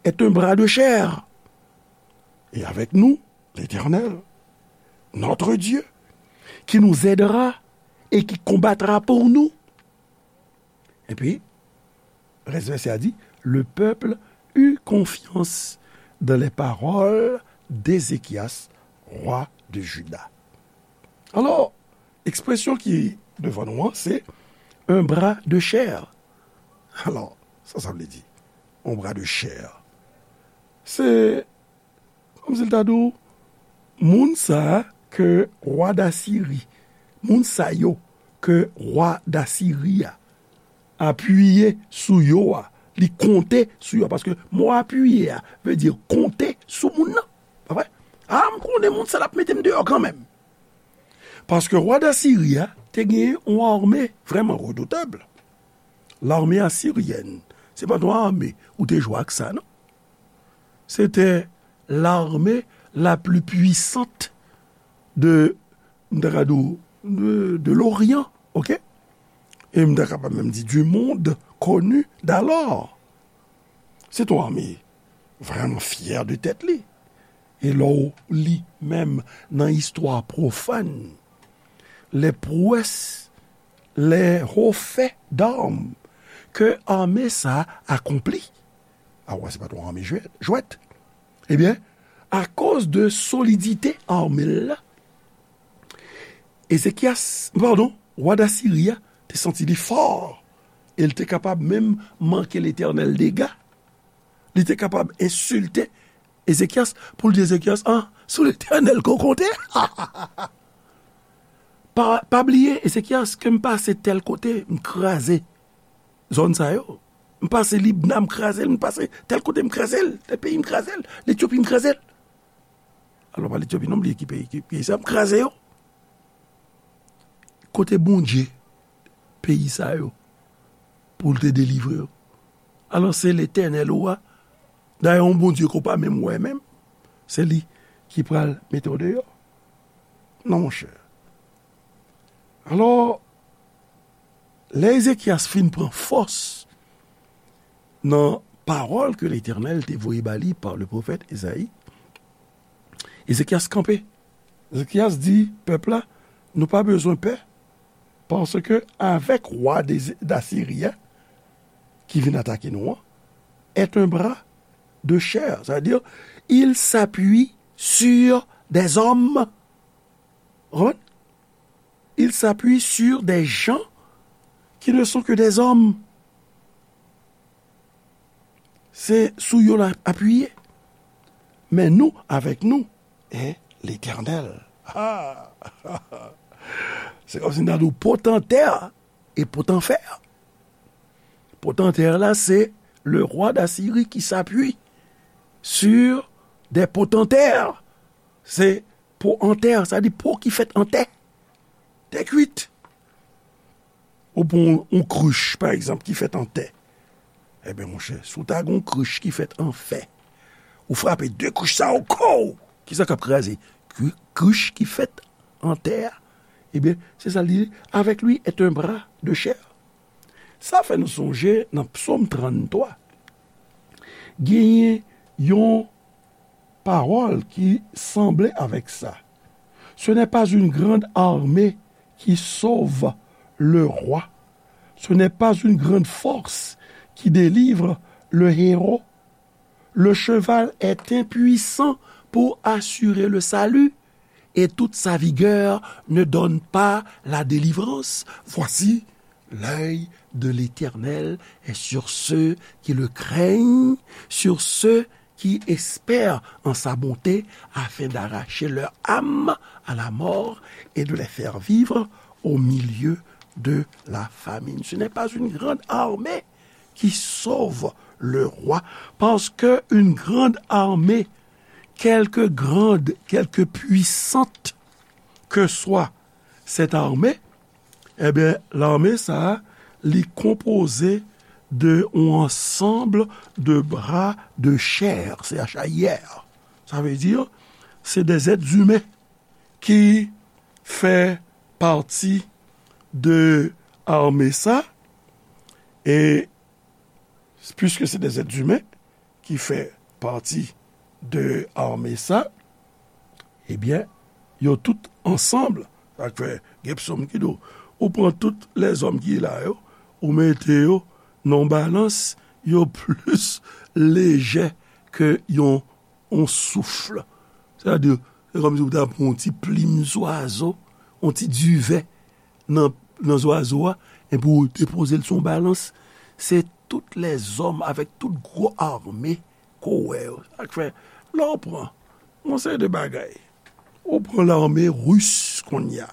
est un bras de chair. Et avec nous, l'Éternel, notre Dieu, qui nous aidera et qui combattra pour nous. Epi, rès vèsè a di, le peuple eut confiance dans les paroles d'Ézéchias, roi de Juda. Alò, ekspresyon ki devan nou an, se un bras de chair. Alò, sa sa vle di, un bras de chair? Se kòmsi l ta di w, moun sa a ke wa Dasiri, moun sa yo ke wa Dasiri a apiye sou yo a, li konte sou yo a, paske mo apiye a vle di konte sou moun nan. Pa vre? A, m konnen moun sa l ap mete m deyò kanmenm. Paske wa Dasiri a te gen yon ame vrèman redoutab. Lame asiryèn, se pa t yon ame ou te jwe ak sa, non. C'était l'armée la plus puissante de, m ta ka di w, de, de l'Orient, ok? E m ta kapab menm di du monde connu d'alors. Se t yon ame vrèman fyè de tèt li. E lè w li menm nan istwa pwofàn, les prouesses, les hauts faits d'armes ke ame sa akonpli. A wè, se pa t yon ame jwèt, jwèt. Ebyen, akoz de solidite ame l la, Ezekyas, padon, wa Dasiri a te santi li fò, e l te kapab menm manke Letènèl dega. Li te kapab ensilte Ezekyas pou l di Ezekyas, ah, sou Letènèl ke w konte. Pa, pa bliye, Ezekyas, ke m pase tèl kote, m kraze zòn sa yo. M pase Libna, m kraze l, m pase tèl kote, m kraze l, tèl peyi, m kraze l, Letyopi, m kraze l. Alò, pa Letyopi non, m bliye ki peyi, ki peyi sa, m kraze yo. Kote Bondye peyi sa yo pou l te delivre yo? Alò, se Letènèl ou a. Dayè, yon Bondye ke w pa menm wè menm, se li ki pral mete w deyò. Non, monchè. Alò, lè Ezekyas fin pran fòs nan pawòl ke Letènèl te voye ba li pa le pwofèt Ezayi, Ezekyas kanpe. Ezekyas di pèp la, nou pa bezwen pè, paske avèk wa de, Dasiri a ki vin atake nou an, est un bras de chair, c'est-à-dire, il s'appuie sur des hommes. Vous comprenez? Il s'appuie sur des gens qui ne sont que des hommes. Se sou yo l ap apiye. Men nou, avèk nou, est l'Éternel. Ah! Se kòmsi n ta di w potantè e potanfè. Potantè la, se le roi d'Assyrie qui s'appuie sur des potentaires. Se po an tè, sa di po ki fèt an tè. Tè kwit. Ou pran yon, yon krich, pa egzanp, ki fèt an tè. Ebyen, monchè, si w ta gen yon krich ki fèt an fè, ou frape de krich sa yo, kow! Kisa k ap kraze? Kri-, krich ki fèt an tè a. Ebyen, se sa l di, avec lui est un bras de chair. Sa fè nou sonje nan Psaume trannntwa, genyen yon pawòl ki sanble avèk sa. Ce n'est pas une grande armée qui sauve le roi. Ce n'est pas une grande force qui délivre le héros. Le cheval est impuissant pour assurer le salut, et toute sa vigueur ne donne pas la délivrance. Voici, l'œil de l'Éternel est sur ceux qui le craignent, sur ceux qui espèrent en sa bonté, afin d'arracher leur âme à la mort et de les faire vivre au milieu de la famine. Ce n'est pas une grande armée qui sauve le roi, parce que une grande armée, quelque grande, quelque puissante que soit cette armée, ebyen, lame sa a, li konpoze de yon ansanm de bra de chè, C H A I R. Sa vle di, se de zèt imen ki fè pati de ame sa, e piske se de zèt imen, ki fè pati de ame sa, ebyen, yo tout ansanm, sa k fè gen psòm ki di w, ou pran tout lèzòm ki la yo, ou mete yo nan yon balans, yo plis lejè ke yon, yon souf. Sètadi, se kòmsi ou ta pran yon ti plim zwazo, yon ti diven nan, nan zwazo a, epi ou depoze l sou yon balans. Se tout lèzòm avèk tout gwo ame ke w wè yo. Sa k fè, lè w pran yon seri de bagay, ou pran lame ris kounye a,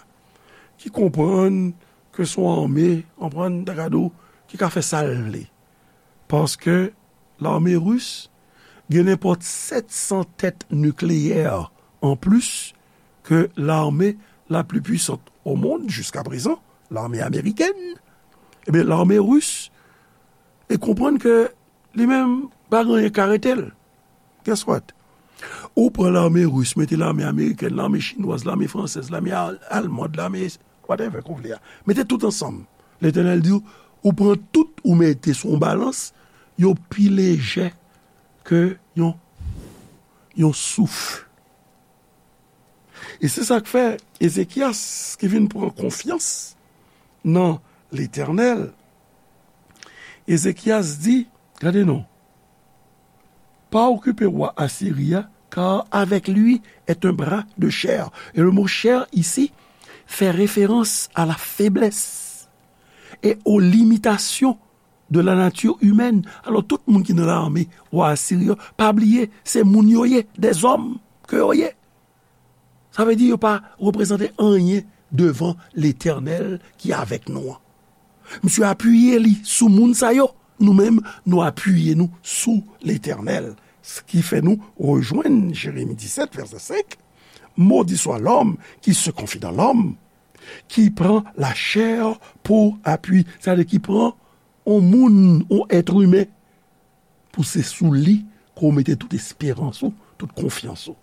ki konprann ke se yon ame, konprann, ta ka di w, ki ka fè sa l vle. Paske lame ris gen nenpòt sèt san tèt nikleyè anplis ke lame la pli pwisant o mond jiska prezan, lame amerikèn. Ebyen, lame ris, e konprann ke li menm pa gen anyen k ka rete l. Guess what? Ou pran lame ris, mete lame amerikèn, lame chinwaz, lame fransèz, lame al-, almand, lame whatever ke w vle a. Mete tout ansanm. Letènèl di w, ou pran tout, ou mete sou yon balans, yo pi lejè ke yon, yon souf. E se sa k fè Ezekyas ki vin pran konfyans nan Letènèl, Ezekyas di, gade non, pas occuper roi Assyrie, car avec lui est un bras de chair. Et le mot chair ici fait référence à la faiblesse et aux limitations de la nature humaine. Alò, tout moun ki nan lame wa Asiri yo, pa bliye, se moun yo ye, dèzòm ke yo ye. Sa vle di yo pa reprezante anyen devan Letènèl ki avèk nou an. Misye apiye li sou moun sa yo. Nou menm, nou apiye nou sou Letènèl. Sa ki fè nou rejwenn Jeremi disèt, vèsè senk. Maudit soit l'homme qui se confie dans l'homme, qui prend la chair pour appui. Sa vle di ki pran yon moun, yon èt imen, pou se sou li ke w mete tout esperans ou, tout konfyans ou.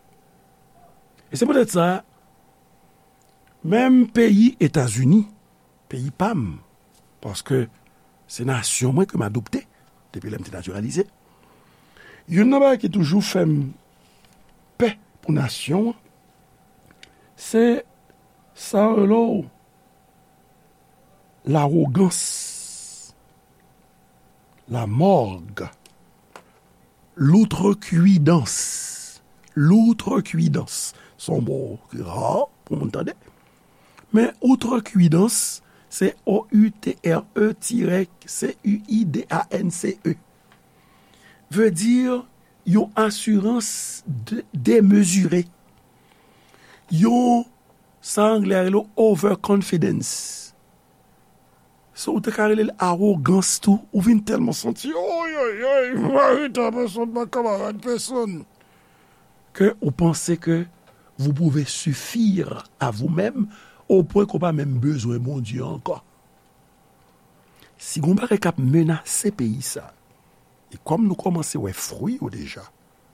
E se poutèt sa, menm peyi Etazini, peyi pa m, paske se nasyon mwen ke m adopte depi lè m te natiralize, youn nan bagay ki toujou fè m pè pou nasyon an, se sa yo rele w lawogans, lamòg, loutrekwidans. Loutrekwidans. Se yon mo ki ra pou moun tande. Men outrekwidans, se O U T R E tirè C U I D A N C E. Vle di yon asirans de-, demezire. Yon, sa anglè a rele overconfidence. So, ou te ka rele l awogans tou, ou vin tèlman santi, oy, oy, oy, mari ta pèsonn, pa kamarad pèsonn, ke ou panse ke vous pouvez suffire à vous-même, o pwen ke w pa menm bezwen Bondye ankò. Si gon bagay k ap menase peyi sa, e kòm nou kòmanse wè fwi yo deja,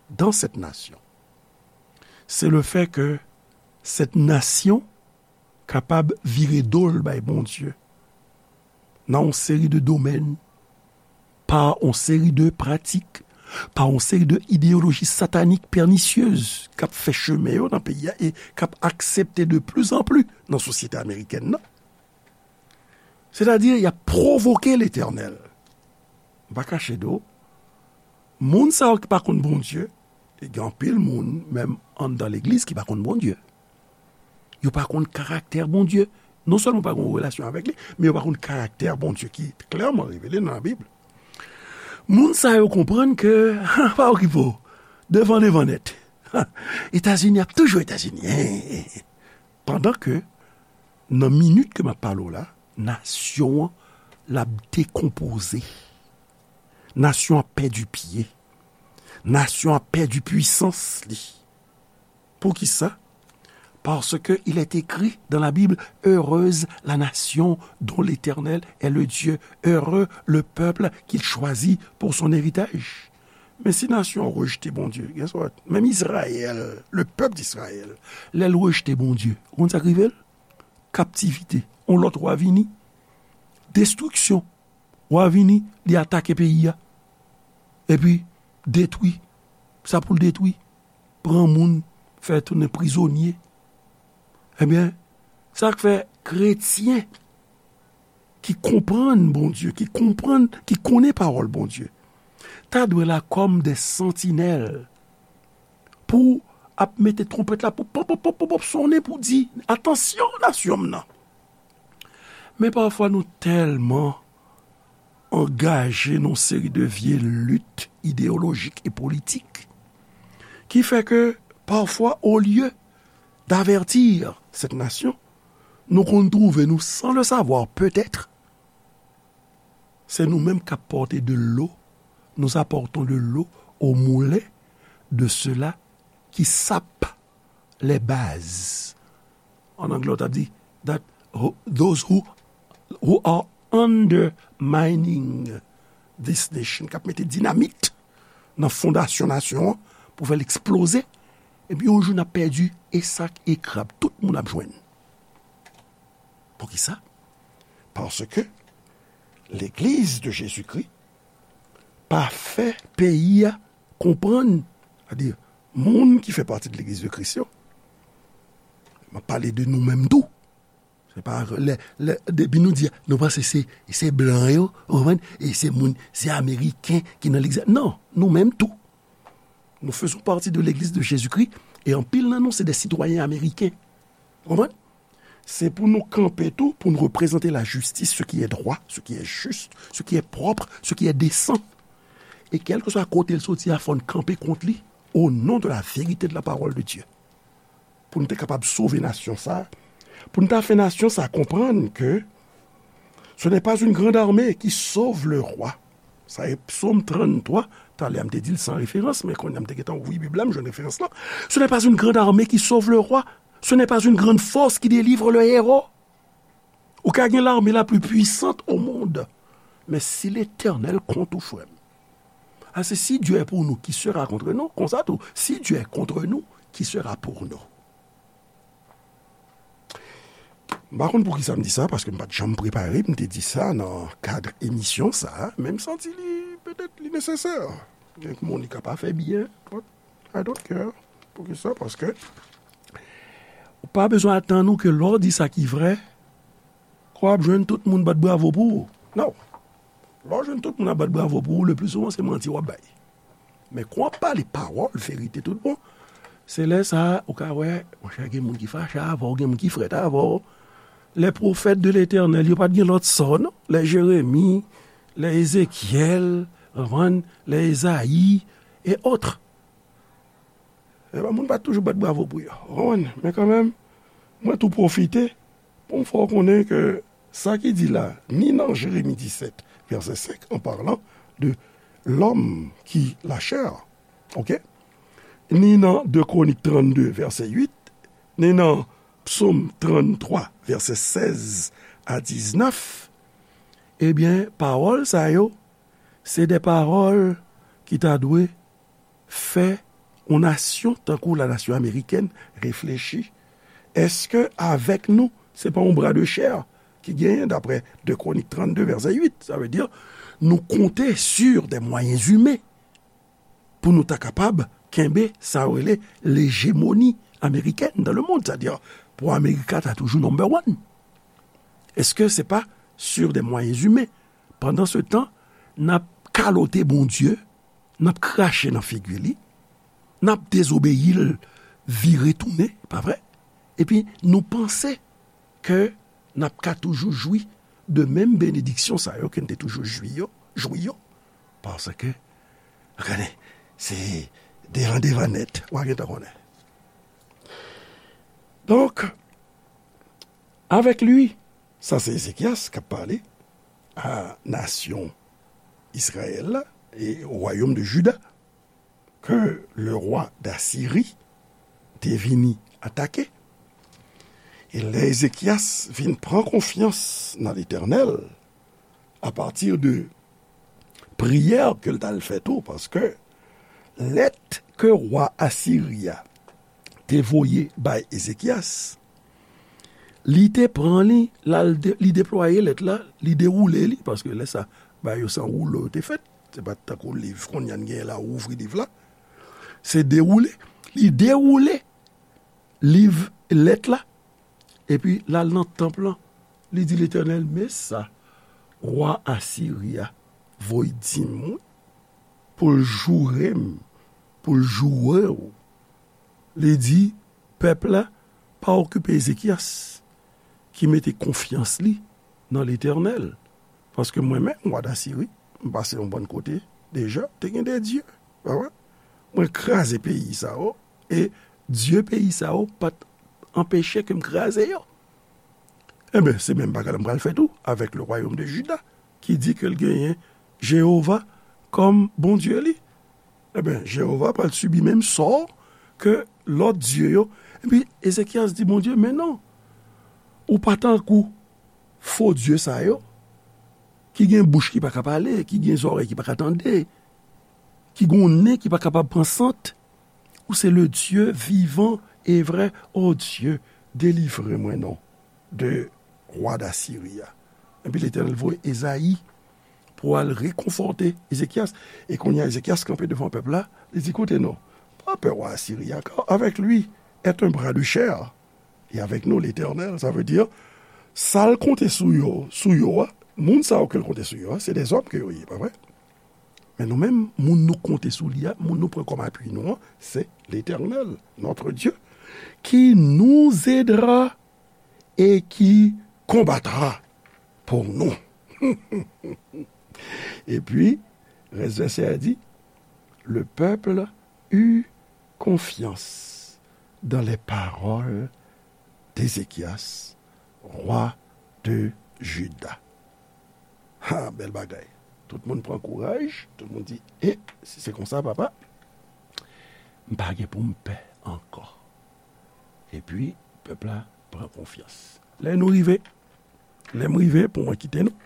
dans cette nation, c'est le fait que cette nation kapab vire do l bay Bondye nan yon seri de domèn, pa yon seri de pratik, pa yon seri de ideyoloji satanik pènisyez k ap fè chemen yo nan peyi a e k ap aksepte de pli an pli nan sosyete amerikèn nan. Sètadi, y ap pwovoke Letènèl. M pa kache do, moun sa yo ki pa konn Bondye, e gen anpil moun, menm anndan legliz, ki pa konn Bondye. Yo pa konn karaktè Bondye. Non sèlman yo pa gen yon relasyon avèk li, men yo pa konn karaktè Bondye ki klèman revele nan Labib. Moun sa yo konprann ke, pa okipe w, devan, devan nèt. Etazini ap toujou Etazini. Pandan ke, nan minit ke m ap pale w la, nasyon an, l ap dekonpoze. Nasyon an pèdi pye. Nasyon an pèdi pwisans li. Poukisa? Parce que il est écrit dans la Bible, heureuse la nation dont l'Éternel est le Dieu, heureux le peuple qu'il choisit pour son héritage. Men si nasyon an rejte Bondye, guess what? Menm Izrayèl, le peuple d'Israël, lè l rejte Bondye, ou konn sa k rive l? Kaptivite. Yon lòt wa vini. Destriksyon. Wa vini, li atake peyi a. Epi, detwi. Sa pou l detwi. Pran moun, fè tounen prizonye. Ebyen, sa k fè kretyen ki konprann Bondye, ki konprann, ki konnen pawòl Bondye, ta dwe la kòm de santinèl pou ap mete twonpèt la pou pop, pop, pop, pop, pop, sonnen pou di, "Atansyon, nasyon m nan." Men pafwa nou tèlman angaje nan yon seri de vye lit ideyolojik e politik ki fè ke pafwa, olye d'avertir cette nation, nou konn twouve nou, sans le savoir peut-être, se nou menm k ap pòte de l'eau, nous apportons de l'eau au moulin de ceux-là qui sapent les bases. An anglè, w t ap di, that who- those who, who are undermining this nation, k ap mete dinamit nan fondasyon nasyon an pou fè l eksploze. Epi yon jou n ap pèdi, e sak e krab, tout moun ap jwenn. Poukisa? Paske Legliz de Jezikri pa fè peyi a konprann, sètadi moun ki fè pati de Legliz de Kris yo, m ap pale de nou menm tou. Se pa lè, lè, depi nou di, nou panse se, se blan yo, ou konprann? E se moun, se Ameriken ki nan legliz. Non, nou menm tou. Nous faisons partie de l'Église de Jésus-Christ, e anpil nan nou se de sitwayen ameriken. Ou konprann? Se pou nou kanpe tou, pou nou reprezante la justice, ce qui est droit, ce qui est juste, ce qui est propre, ce qui est décent. E kèlkeswa kote l soti a, fò n kanpe kont li, au nom de la vérité de la parole de Dieu. Pou n te kapab sove nasyon sa, pou n ta fè nasyon sa konprann ke ce n'est pas une grande armée qui sauve le roi. Sa e Psaume trannntwa, talè a m te di l san referans, men kounye a m te gentan ouvri Bib la, m jwenn referans lan. Ce n'est pas une grande armée qui sauve le roi. Ce n'est pas une grande force qui délivre le héros. Ou ka gen l'armée la plus puissante au monde. Men si Letènèl kont ou, frè m. Ase si Dieu est pour nous, qui sera contre nous? Konsa tou, si Dieu est contre nous, qui sera pour nous? M pa konn poukisa m di sa, paske m pa t janm prepare m te di sa nan kad emisyon sa a, men m santi li, petèt, li nesesè. Gen moun li ka pa fè byen, but I don't care. Poukisa? Paske ou pa bezwen atann ou ke lè w di sa ki vrè, ke w ap jwenn tout moun bat bravo pou ou. Non. Lè w jwenn tout moun ap bat bravo pou ou, le pli souvan se manti w ap bay. Men kan w ap pale pawòl, verite tout bon, se lè sa a ou ka wè, monchè, gen moun ki fache avè w, gen moun ki frèt avè w. Les prophètes de l'Éternel, yo pa t gen lòt sò, non? Les Jérémie, les Ézéchiel, konprann, les Ésaïe, et autres. Ebyen, moun pa t toujou bat bravo pou yo. Ou konprann? Men kanmenm, mwen tou pwofite pou m fè w konnen ke sa ki di la, ni nan Jeremi disèt, vèsè senk, en parlant de l'homme qui la chair, ok? Ni nan de Kronik trannde, vèsè uit, ni nan Psaume trannntwa, vèsè sèz a diznèf, ebyen, pawòl sa yo, se de pawòl ki ta dwe fè yon nasyon tankou la nasyon amerikèn reflechi. Èske avèk nou, se pa yon bra de chè ki genyen, daprè de Kronik trannde, vèsè uit? Sa vle di, nou konte sur des moyens humains pou nou ta kapab kenbe sa yo rele l'hégémonie américaine dans le monde, sètadi pou Amerika ta toujou number one. Èske se pa sur des moyens humains? Pandan se tan, n ap kalote Bondye, n ap krache nan figi li, n ap dezobeyi l, vire tounen, pa vre? Epi nou panse ke n ap ka toujou jwi de menm benediksyon sa yo ke n te toujou jwi yo, jwi yo. Paske, gade, se devan devan nèt, w a gentan konnen. Donk, avec lui, sa se Ezekyas k ap pale a nasyon Izrayèl la, e o wayòm de Jida, ke le rwa Dasiri te vini atake. E lè Ezekyas vin pran konfyans nan Letènèl, apati de priyè ke l t al fè tou, paske lèt ke rwa Asiri a te voye bay Ezekyas, li te pran li, l al de-, li deplwaye lèt la, li dewoule li, paske lè sa, bagay yo se an woulo yo te fèt. Se pa t tankou liv kounye a n genyen la, ou ouvri liv la. Se dewoule. Li dewoule liv, lèt la, epi l al nan tanp lan. Li di Letènèl, men sa wa Asiri a voye di m wi, pou l joure m, pou l joure w. Li di pèp la pa okipe Ezekyas ki mete konfyans li nan Letènèl. Paske mwen menm, wa Dasiri, m pase yon bann kote deja, te gen de dye. Pa vre? Mwen kraze peyi sa yo, e dye peyi sa yo pa t anpeche ke m kraze yo. Enben, se menm bagay la m pral fè tou avèk le royaume de Juda, ki di ke l genyen Jewova kòm Bondye li. Enben, Jewova pral sibi menm sò ke lòt dye yo. Epi Ezekyas di Bondye, men non, ou pa tankou fo dye sa yo, ki gen bouch ki pa ka pale, ki gen zòrèy ki pa ka tande, ki gen nen ki pa kapab pran sant. Ou se le Dieu vivant et vrai. O Dye, delivre mwen non de wa Dasiri a. Epi Letènèl voye Ezayi pou al rekonfòte Ezekyas. E kounye a, Ezekyas kanpe devan pèp la, li di, koute non, pa pè wa Asiri a, car avec lui est un bras de chair, et avec nous l'Éternel. Sa vle di, sa l konte sou yo, sou yo a, moun sa yo ke l konte sou yo a, se de zòm ke yo ye, pa vre? Men nou menm, moun nou konte sou li a, moun nou pran kòm apui nou an, se Letènèl, notre Dieu, qui nous aidera et qui combattra pour nous. Epi, rès vèsè a di, le peuple eut confiance dans les paroles d'Ézéchias, roi de Juda. Ha, bèl bagay. Tout moun pran kouraj, tout moun di, e, si se konsa, papa, m pa gen pou m pè ankò. Epi, pèp la pran konfyans. Lè nou rive, lè m rive pou mwen kite nou,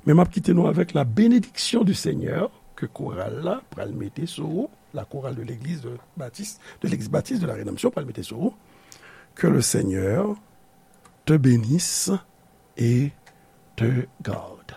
men m ap kite nou avèk la bénédiction du Seigneur ke koral la pral mete sou ou, la chorale de l'église de Baptiste, de l'église baptiste de la Rédemption pral mete sou ou. Que le Seigneur te bénisse et te garde.